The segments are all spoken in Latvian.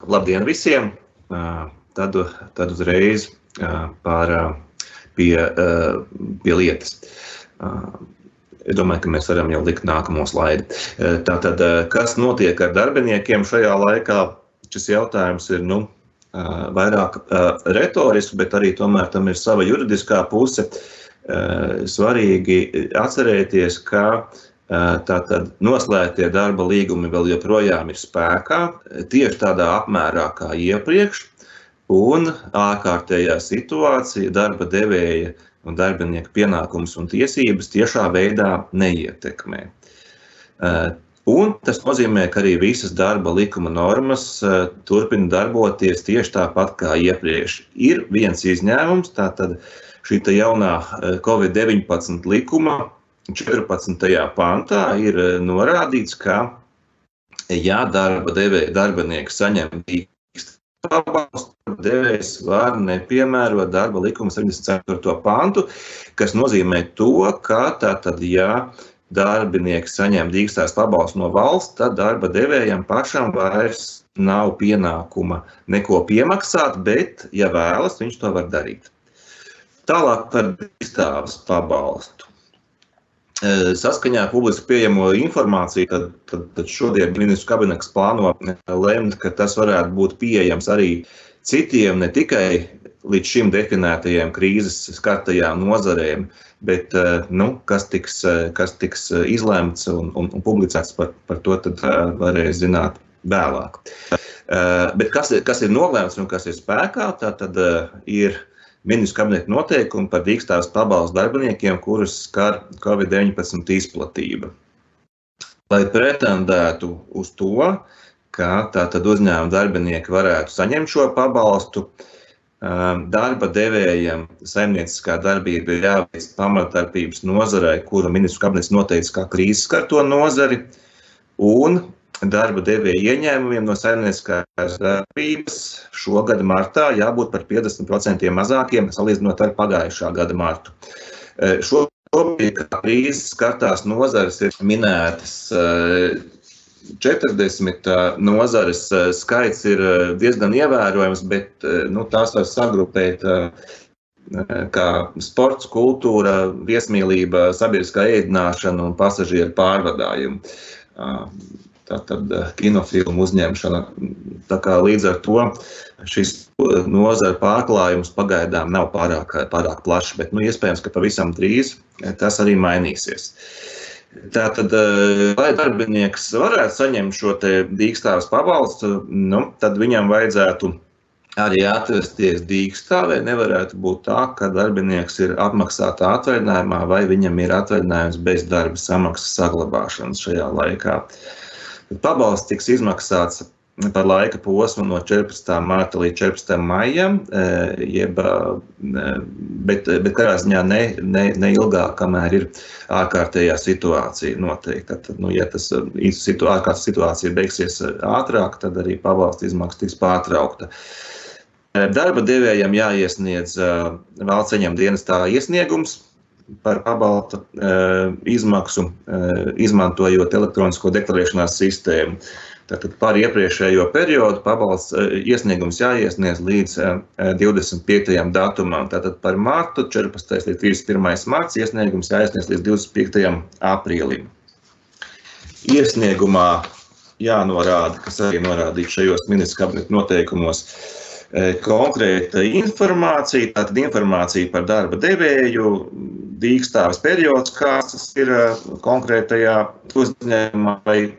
Labdien visiem! Tad uzreiz pie lietas. Es domāju, ka mēs varam jau likt nākamo slaidi. Tātad, kas notiek ar darbiniekiem šajā laikā? Šis jautājums ir vairāk retorisks, bet arī tomēr tam ir sava juridiskā puse. Svarīgi atcerēties, ka tātad noslēgtie darba līgumi vēl joprojām ir spēkā, tieši tādā apmērā kā iepriekš, un ārkārtējā situācija darba devēja un darbinieku pienākumus un tiesības tiešā veidā neietekmē. Un tas nozīmē, ka arī visas darba likuma normas turpina darboties tieši tāpat kā iepriekš. Ir viens izņēmums, tātad šī jaunā Covid-19 likuma 14. pantā ir norādīts, ka, ja darba devēja darbinieks saņem pabalstu, devējs var nepiemērot darba likuma 74. pantu, kas nozīmē to, ka tātad, ja darbinieks saņem dīkstās pabalstu no valsts, tad darba devējam pašam vairs nav pienākuma neko piemaksāt, bet, ja vēlas, viņš to var darīt. Tālāk par dīkstās pabalstu. Saskaņā ar publiski pieejamo informāciju, tad šodien ministru kabinets plāno lemt, ka tas varētu būt pieejams arī citiem, ne tikai līdz šim definētajiem krīzes skartajām nozarēm, bet kas tiks izlemts un publicēts par to, tad varēs zināt vēlāk. Bet kas ir nolēmts un kas ir spēkā, tad ir ministru kabineta noteikumi par dīkstās pabalstu darbiniekiem, kurus skar Covid-19 izplatība. Lai pretendētu uz to, ka tātad uzņēmuma darbinieki varētu saņemt šo pabalstu, darba devējam saimnieciskā darbība ir jāveic pamatdarbības nozarei, kuru ministru kabinets noteica kā krīzes skarto nozari, un darba devēja ieņēmumiem no saimnieciskās darbības šogad martā jābūt par 50% mazākiem, salīdzinot ar pagājušā gada martu. Šobrīd krīzes skartās nozares ir minētas 40 nozares, skaits ir diezgan ievērojams, bet tās var sagrupēt kā sports, kultūra, viesmīlība, sabiedriskā ēdināšana un pasažieru pārvadājumi. Tātad kinofilmu uzņemšana. Tā kā līdz ar to šis nozara pārklājums pagaidām nav pārāk plašs, bet iespējams, ka pavisam drīz tas arī mainīsies. Tātad, lai darbinieks varētu saņemt šo te dīkstāves pabalstu, tad viņam vajadzētu arī atrasties dīkstāvē. Nevarētu būt tā, ka darbinieks ir apmaksātā atvaļinājumā vai viņam ir atvaļinājums bez darba samaksas saglabāšanas šajā laikā. Pabalsts tiks izmaksāts par laika posmu no 14. marta līdz 14. maijam, bet katrā ziņā ne ilgāk, kamēr ir ārkārtējā situācija noteikti. Tad, ja tas ārkārtas situācija beigsies ātrāk, tad arī pabalsta izmaksa tiks pārtraukta. Darba devējam jāiesniedz valsts ieņēmuma dienestā iesniegums par pabalsta izmaksu, izmantojot elektronisko deklarēšanās sistēmu. Tātad par iepriekšējo periodu pabalsts iesniegums jāiesniedz līdz 25. datumam. Tātad par martu 14. līdz 31. marts iesniegums jāiesniedz līdz 25. aprīlim. Iesniegumā jānorāda, kas arī norādīts šajos ministru kabineta noteikumos, konkrēta informācija, tātad informācija par darba devēju, dīkstāves periods, kāds tas ir konkrētajā uzņēmumā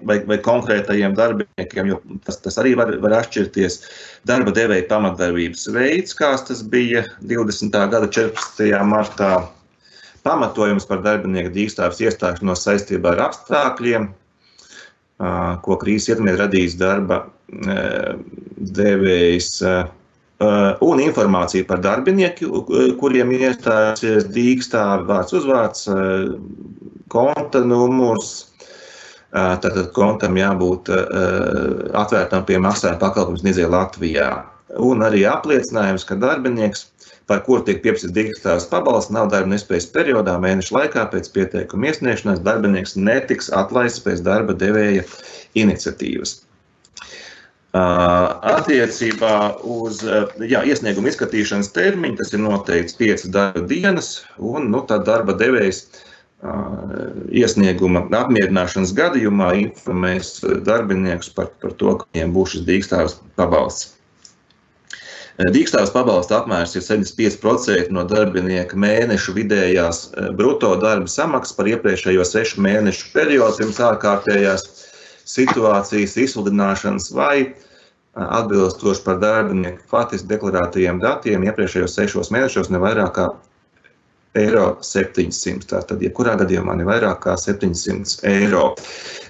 vai konkrētajiem darbiniekiem, jo tas arī var atšķirties. Darba devēja pamatdarbības veids, kāds tas bija 20. gada 14. martā, pamatojums par darbinieku dīkstāves iestāšanos saistībā ar apstākļiem, ko krīzes ietekmē radījis darba devējs, un informācija par darbinieku, kuriem iestājusies dīkstāve, vārds uzvārds, konta numurs. Tātad kontam jābūt atvērtam pie maksājuma pakalpojumu sniedzēja Latvijā. Un arī apliecinājums, ka darbinieks, par kuru tiek pieprasīts dīkstāves pabalsts, nav darba nespējas periodā mēneša laikā pēc pieteikuma iesniegšanas, darbinieks netiks atlaists pēc darba devēja iniciatīvas. Attiecībā uz iesniegumu izskatīšanas termiņu, tas ir noteikts 5 darba dienas, un tad darba devējs iesnieguma apmierināšanas gadījumā informēs darbiniekus par to, ka viņiem būs šis dīkstāves pabalsts. Dīkstāves pabalsta apmērs ir 75% no darbinieka mēnešu vidējās bruto darba samaksas par iepriekšējo 6 mēnešu periodu pirms ārkārtējās situācijas izsludināšanas vai atbilstoši par darbinieku faktiski deklarētajiem datiem iepriekšējos 6 mēnešos ne vairāk kā €700. Tātad, jebkurā gadījumā ne vairāk kā €700.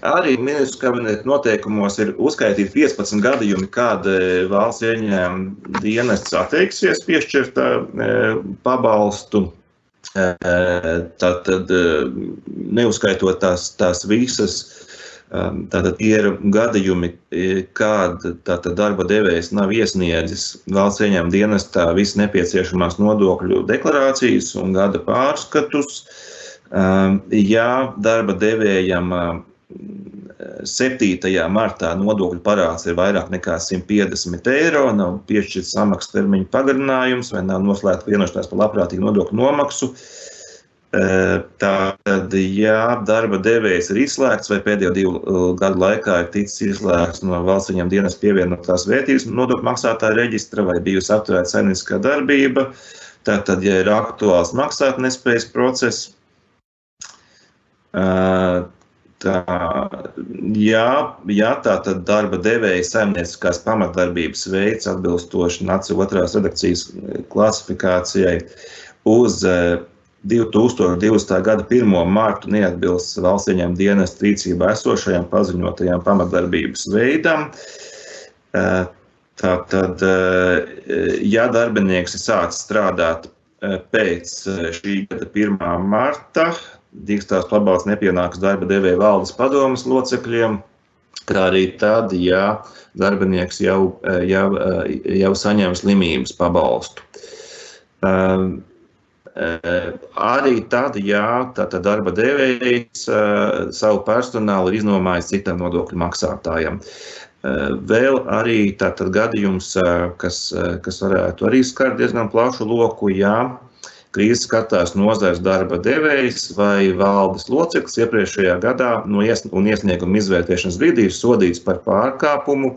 Arī ministru kabineta noteikumos ir uzskaitīti 15 gadījumi, kad valsts ieņēmuma dienests atteiksies piešķirt pabalstu. Tātad, neuzskaitot tās visas, tātad ir gadījumi, kad darba devējs nav iesniedzis valsts ieņēmuma dienestā visas nepieciešamās nodokļu deklarācijas un gada pārskatus. Ja darba devējam 7. martā nodokļu parāds ir vairāk nekā €150, nav piešķirts samaksas termiņa pagarinājums vai nav noslēgta vienošanās par labprātīgu nodokļu nomaksu, tātad, ja darba devējs ir izslēgts vai pēdējo 2 gadu laikā ir ticis izslēgts no valsts ieņēmuma dienesta pievienotās vērtības nodokļu maksātāja reģistra vai bijusi apturēta saimnieciskā darbība, tātad, ja ir aktuāls maksātnespējas process, tātad darba devēja saimnieciskās pamatdarbības veids atbilstoši NACI 2. redakcijas klasifikācijai uz 2020. gada 1. martu neatbilst valsts ieņēmuma dienesta rīcībā esošajam paziņotajam pamatdarbības veidam. Tātad, ja darbinieks ir sācis strādāt pēc šī gada 1. marta, dīkstāves pabalsts nepienāks darba devēja valdes padomes locekļiem, kā arī tad, ja darbinieks jau saņem slimības pabalstu. Arī tad, ja darba devējs savu personālu ir iznomājis citam nodokļu maksātājam. Vēl arī tātad gadījums, kas varētu arī skart diezgan plašu loku, ja krīzes skatās nozares darba devējs vai valdes loceklis iepriekšējā gadā un iesnieguma izvērtēšanas brīdī ir sodīts par pārkāpumu,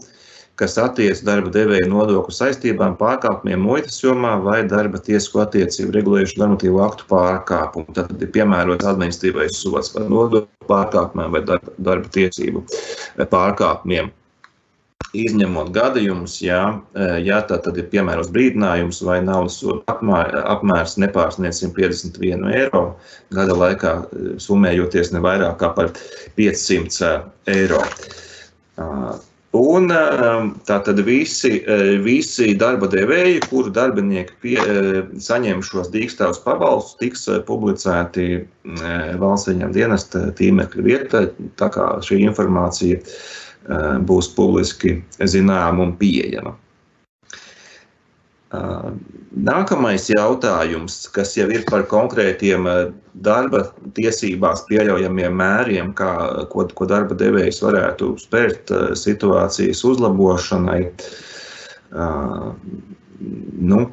kas attiec darba devēja nodokļu saistībām, pārkāpumiem muitas jomā vai darba tiesisko attiecību regulējušu normatīvu aktu pārkāpumu. Tad ir piemērots administratīvais sods par nodokļu pārkāpumiem vai darba tiesību pārkāpumiem. Izņemot gadījumus, ja tad ir piemērots brīdinājums vai naudas soda apmērs nepārsniedz €151, gada laikā summējoties ne vairāk kā par €500. Un tātad visi darba devēji, kuru darbinieki saņem šos dīkstāves pabalstus, tiks publicēti valsts ieņēmuma dienesta tīmekļa vietā, tā kā šī informācija būs publiski zināma un pieejama. Nākamais jautājums, kas jau ir par konkrētiem darba tiesībās pieļaujamiem mēriem, ko darba devējs varētu spērt situācijas uzlabošanai.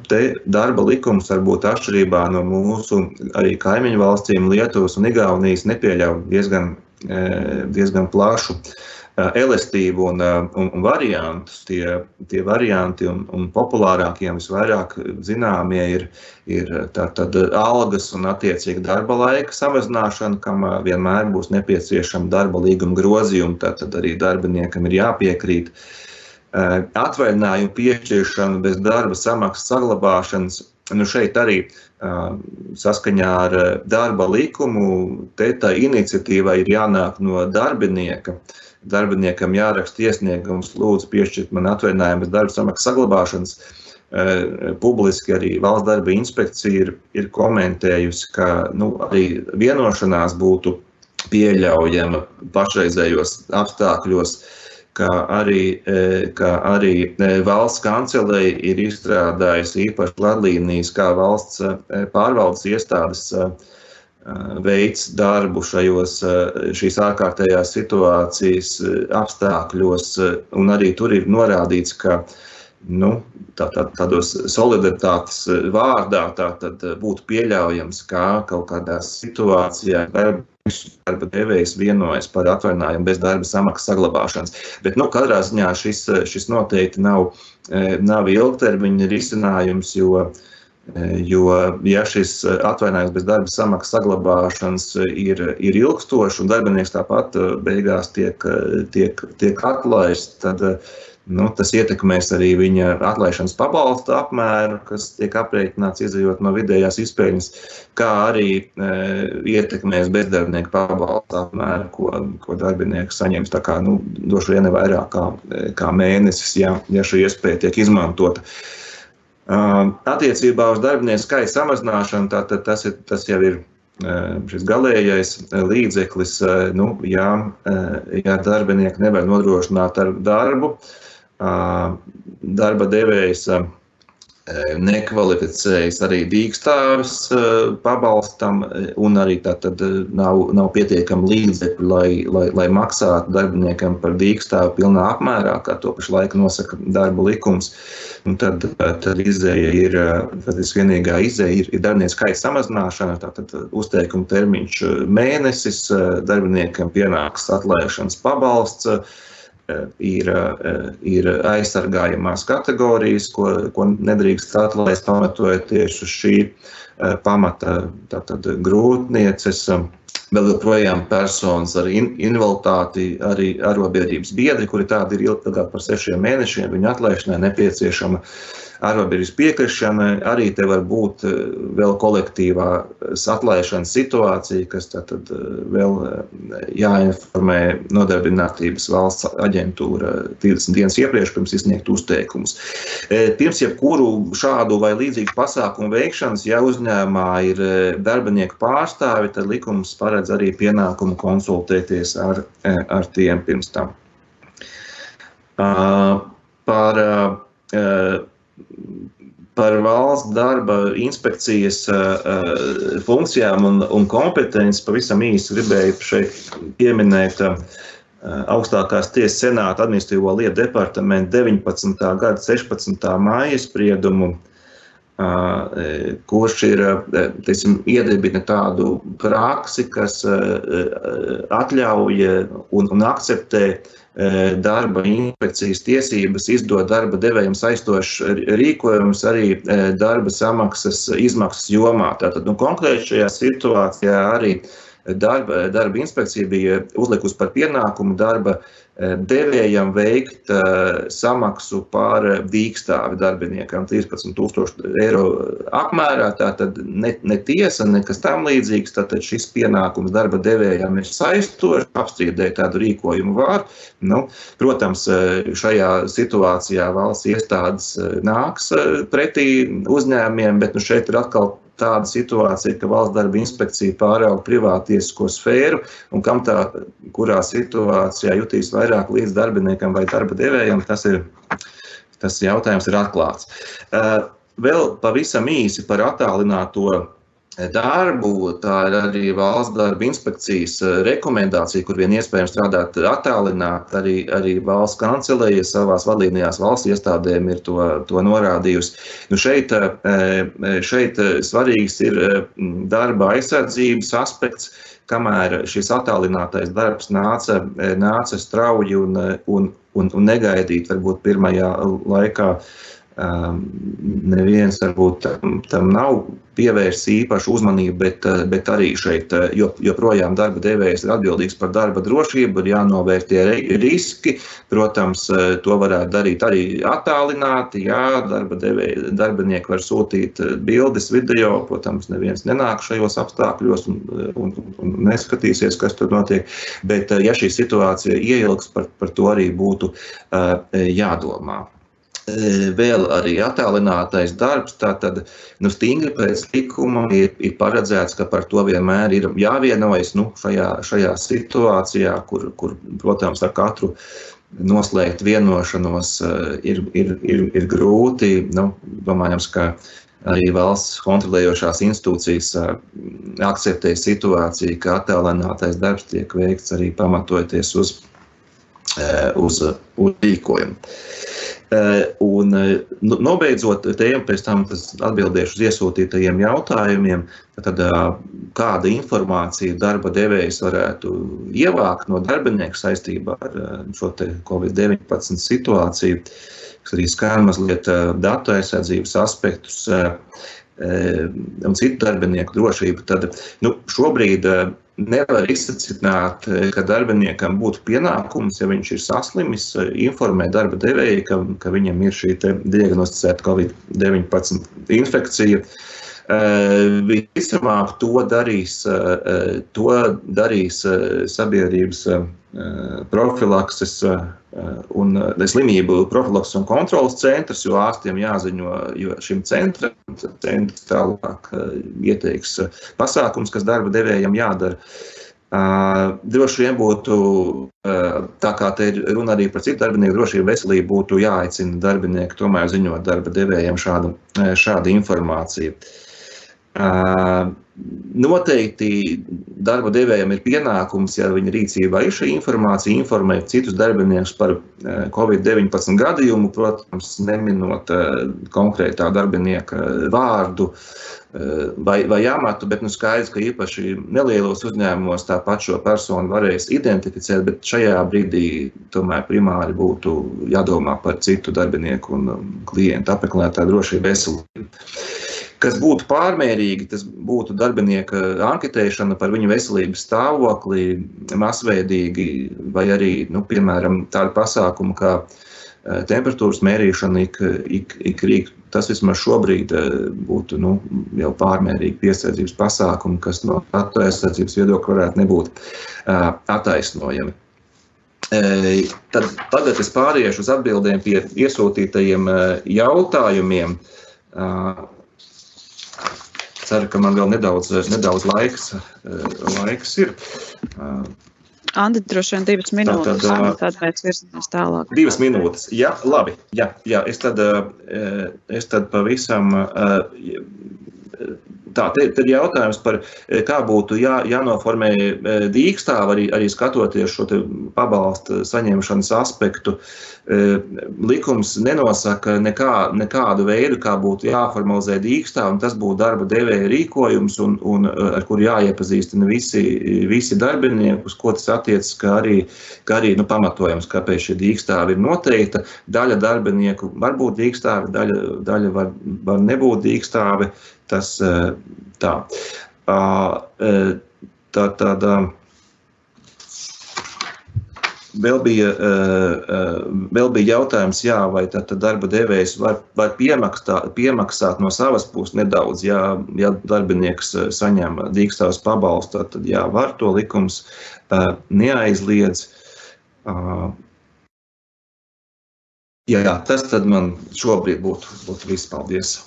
Te darba likums varbūt atšķirībā no mūsu arī kaimiņu valstīm Lietuvas un Igaunijas nepieļauj diezgan plašu elastību un variantus. Tie varianti un populārākie visvairāk zināmie ir tātad algas un attiecīgi darba laika samazināšana, kam vienmēr būs nepieciešama darba līguma grozījuma, tātad arī darbiniekam ir jāpiekrīt. Atvaļinājumu piešķiršana bez darba samaksas saglabāšanas, šeit arī saskaņā ar darba likumu, tā iniciatīva ir jānāk no darbinieka. Darbiniekam jāraksta iesniegums, lūdzu piešķirt man atvaļinājumu bez darba samaksas saglabāšanas. Publiski arī valsts darba inspekcija ir komentējusi, ka arī vienošanās būtu pieļaujama pašreizējos apstākļos, kā arī valsts kancelei ir izstrādājusi īpaši vadlīnijas, kā valsts pārvaldes iestādes veids darbu šīs ārkārtējās situācijas apstākļos, un arī tur ir norādīts, ka tādos solidaritātes vārdā tātad būtu pieļaujams, ka kaut kādā situācijā darba devējs vienojas par atvaļinājumu bez darba samaksas saglabāšanas. Bet katrā ziņā šis noteikti nav ilgtermiņa risinājums, jo ja šis atvaļinājums bez darba samaksas saglabāšanas ir ilgstošs un darbinieks tāpat beigās tiek atlaists, tad tas ietekmēs arī viņa atlaišanas pabalsta apmēru, kas tiek aprēķināts izējot no vidējās izpēļņas, kā arī ietekmēs bezdarbnieku pabalsta apmēru, ko darbinieks saņems. Tā kā droši vien vairāk kā mēnesis, ja šī iespēja tiek izmantota. Attiecībā uz darbinieku skaita samazināšanu, tātad tas jau ir šis galējais līdzeklis, ja darbinieki nevar nodrošināt ar darbu, darba devējs nekvalificējas arī dīkstāvis pabalstam, un arī tātad nav pietiekami līdzekļi, lai maksātu darbiniekam par dīkstāvu pilnā apmērā, kā to pašlaik nosaka darba likums. Un tad izēja ir, vienīgā izēja ir darbinieku skaita samazināšana, tātad uzteikuma termiņš mēnesis, darbiniekam pienāks atlaišanas pabalsts, ir aizsargājamās kategorijas, ko nedrīkst atlaist pamatojoties uz šī pamata, tātad grūtnieces, vēl joprojām personas ar invaliditāti, arī arotbiedrības biedri, kuri tādi ir ilgāk par 6 mēnešiem, viņu atlaišanai nepieciešama arotbiedrības piekrišana, arī te var būt vēl kolektīvās atlaišanas situācija, kas tātad vēl jāinformē Nodarbinātības valsts aģentūra 30 dienas iepriekš pirms izsniegt uzteikumus. Pirms jebkuru šādu vai līdzīgu pasākumu veikšanas, ja uzņēmumā ir darbinieku pārstāvi, tad likums paredz arī pienākumu konsultēties ar tiem pirms tam. Par valsts darba inspekcijas funkcijām un kompetenci pavisam īsi gribēju šeit pieminēt augstākās tiesas senāta administratīvo lietu departamentu 19. gada 16. māja spriedumu, kurš ir iedibina tādu praksi, kas atļauj un akceptē darba inspekcijas tiesības izdot darba devējiem saistošs rīkojums arī darba samaksas izmaksas jomā. Tātad konkrēti šajā situācijā arī darba inspekcija bija uzlikusi par pienākumu darba devējam veikt samaksu par dīkstāvi darbiniekam 13,000 eiro apmērā. Tātad ne tiesa, nekas tam līdzīgs. Tātad šis pienākums darba devējam ir saistošs, apstrīdēt tādu rīkojumu var. Protams, šajā situācijā valsts iestādes nāks pretī uzņēmumiem, bet šeit ir atkal tāda situācija, ka valsts darba inspekcija pārauga privātiesisko sfēru, un kam kurā situācijā jutīs vairāk līdz darbiniekam vai darba devējam, tas jautājums ir atklāts. Vēl pavisam īsi par attālināto darbu, tā ir arī valsts darba inspekcijas rekomendācija, kur vien iespējams strādāt attālināt, arī valsts kancelēja savās vadlīnijās valsts iestādēm ir to norādījusi. Šeit svarīgs ir darba aizsardzības aspekts, kamēr šis attālinātais darbs nāca strauji un negaidīt, varbūt pirmajā laikā neviens varbūt tam nav pievērsts īpašu uzmanību, bet arī šeit joprojām darba devējs ir atbildīgs par darba drošību, ir jānovērtie riski. Protams, to varētu darīt arī attālināti, darbinieki var sūtīt bildes, video, protams, neviens nenāk šajos apstākļos un neskatīsies, kas tur notiek, bet ja šī situācija ieilgs, par to arī būtu jādomā. Vēl arī attālinātais darbs, tātad stingri pēc likuma ir paredzēts, ka par to vienmēr ir jāvienojas šajā situācijā, kur, protams, ar katru noslēgt vienošanos ir grūti. Domājams, ka arī valsts kontrolējošās institūcijas akceptē situāciju, ka attēlinātais darbs tiek veikts arī pamatojoties uz rīkojumu. Un nobeidzot tēmu, pēc tam atbildēšu uz iesūtītajiem jautājumiem, tad kāda informācija darba devējs varētu ievākt no darbinieka saistībā ar šo te COVID-19 situāciju, kas arī skar mazliet datu aizsardzības aspektus un citu darbinieku drošību. Tad šobrīd nevar izsacināt, ka darbiniekam būtu pienākums, ja viņš ir saslimis, informēt darba devēju, ka viņam ir šī diagnosticēta COVID-19 infekcija. Visticamāk, to darīs sabiedrības profilakses un slimību profilakses un kontrolas centrs, jo ārstiem jāziņo šim centram, centrs tālāk ieteiks pasākums, kas darba devējam jādara. Droši vien būtu, tā kā te ir runa arī par citu darbinieku drošību, veselību, būtu jāaicina darbinieki tomēr ziņot darba devējam šādu informāciju. Noteikti darba devējam ir pienākums, ja viņa rīcībā ir šī informācija, informēt citus darbiniekus par COVID-19 gadījumu, protams, neminot konkrētā darbinieka vārdu vai amatu, bet skaidrs, ka īpaši nelielos uzņēmumos tāpat šo personu varēs identificēt, bet šajā brīdī tomēr primāri būtu jādomā par citu darbinieku un klientu apmeklētāju drošību veselību. Kas būtu pārmērīgi, tas būtu darbinieka anketēšana par viņu veselības stāvokli masveidīgi, vai arī, piemēram, tādu pasākumu kā temperatūras mērīšana ik rīt. Tas vismaz šobrīd būtu jau pārmērīgi piesardzības pasākumi, kas no datu aizsardzības viedokļa varētu nebūt attaisnojami. Tagad es pāriešu uz atbildēm pie iesūtītajiem jautājumiem. Ceru, ka man vēl nedaudz laiks ir. Andi, droši vien 2 minūtes, tad pēc virzamies tālāk. 2 minūtes, jā, labi. Jā, es tad pavisam... Te ir jautājums par, kā būtu jānoformē dīkstāve, arī skatoties šo pabalsta saņemšanas aspektu. Likums nenosaka nekādu veidu, kā būtu jāformalizē dīkstāve, un tas būtu darba devēja rīkojums, un ar kuru jāiepazīstina visi darbinieki, uz ko tas attiecas, kā arī pamatojums, kāpēc šī dīkstāve ir noteikta. Daļa darbinieku var būt dīkstāve, daļa var nebūt dīkstāve. Tas tā. Vēl bija jautājums, vai tad darba devējs var piemaksāt no savas puses nedaudz, ja darbinieks saņem dīkstāves pabalstu, tad var, to likums neaizliedz. Jā, tas tad man šobrīd būtu viss. Paldies!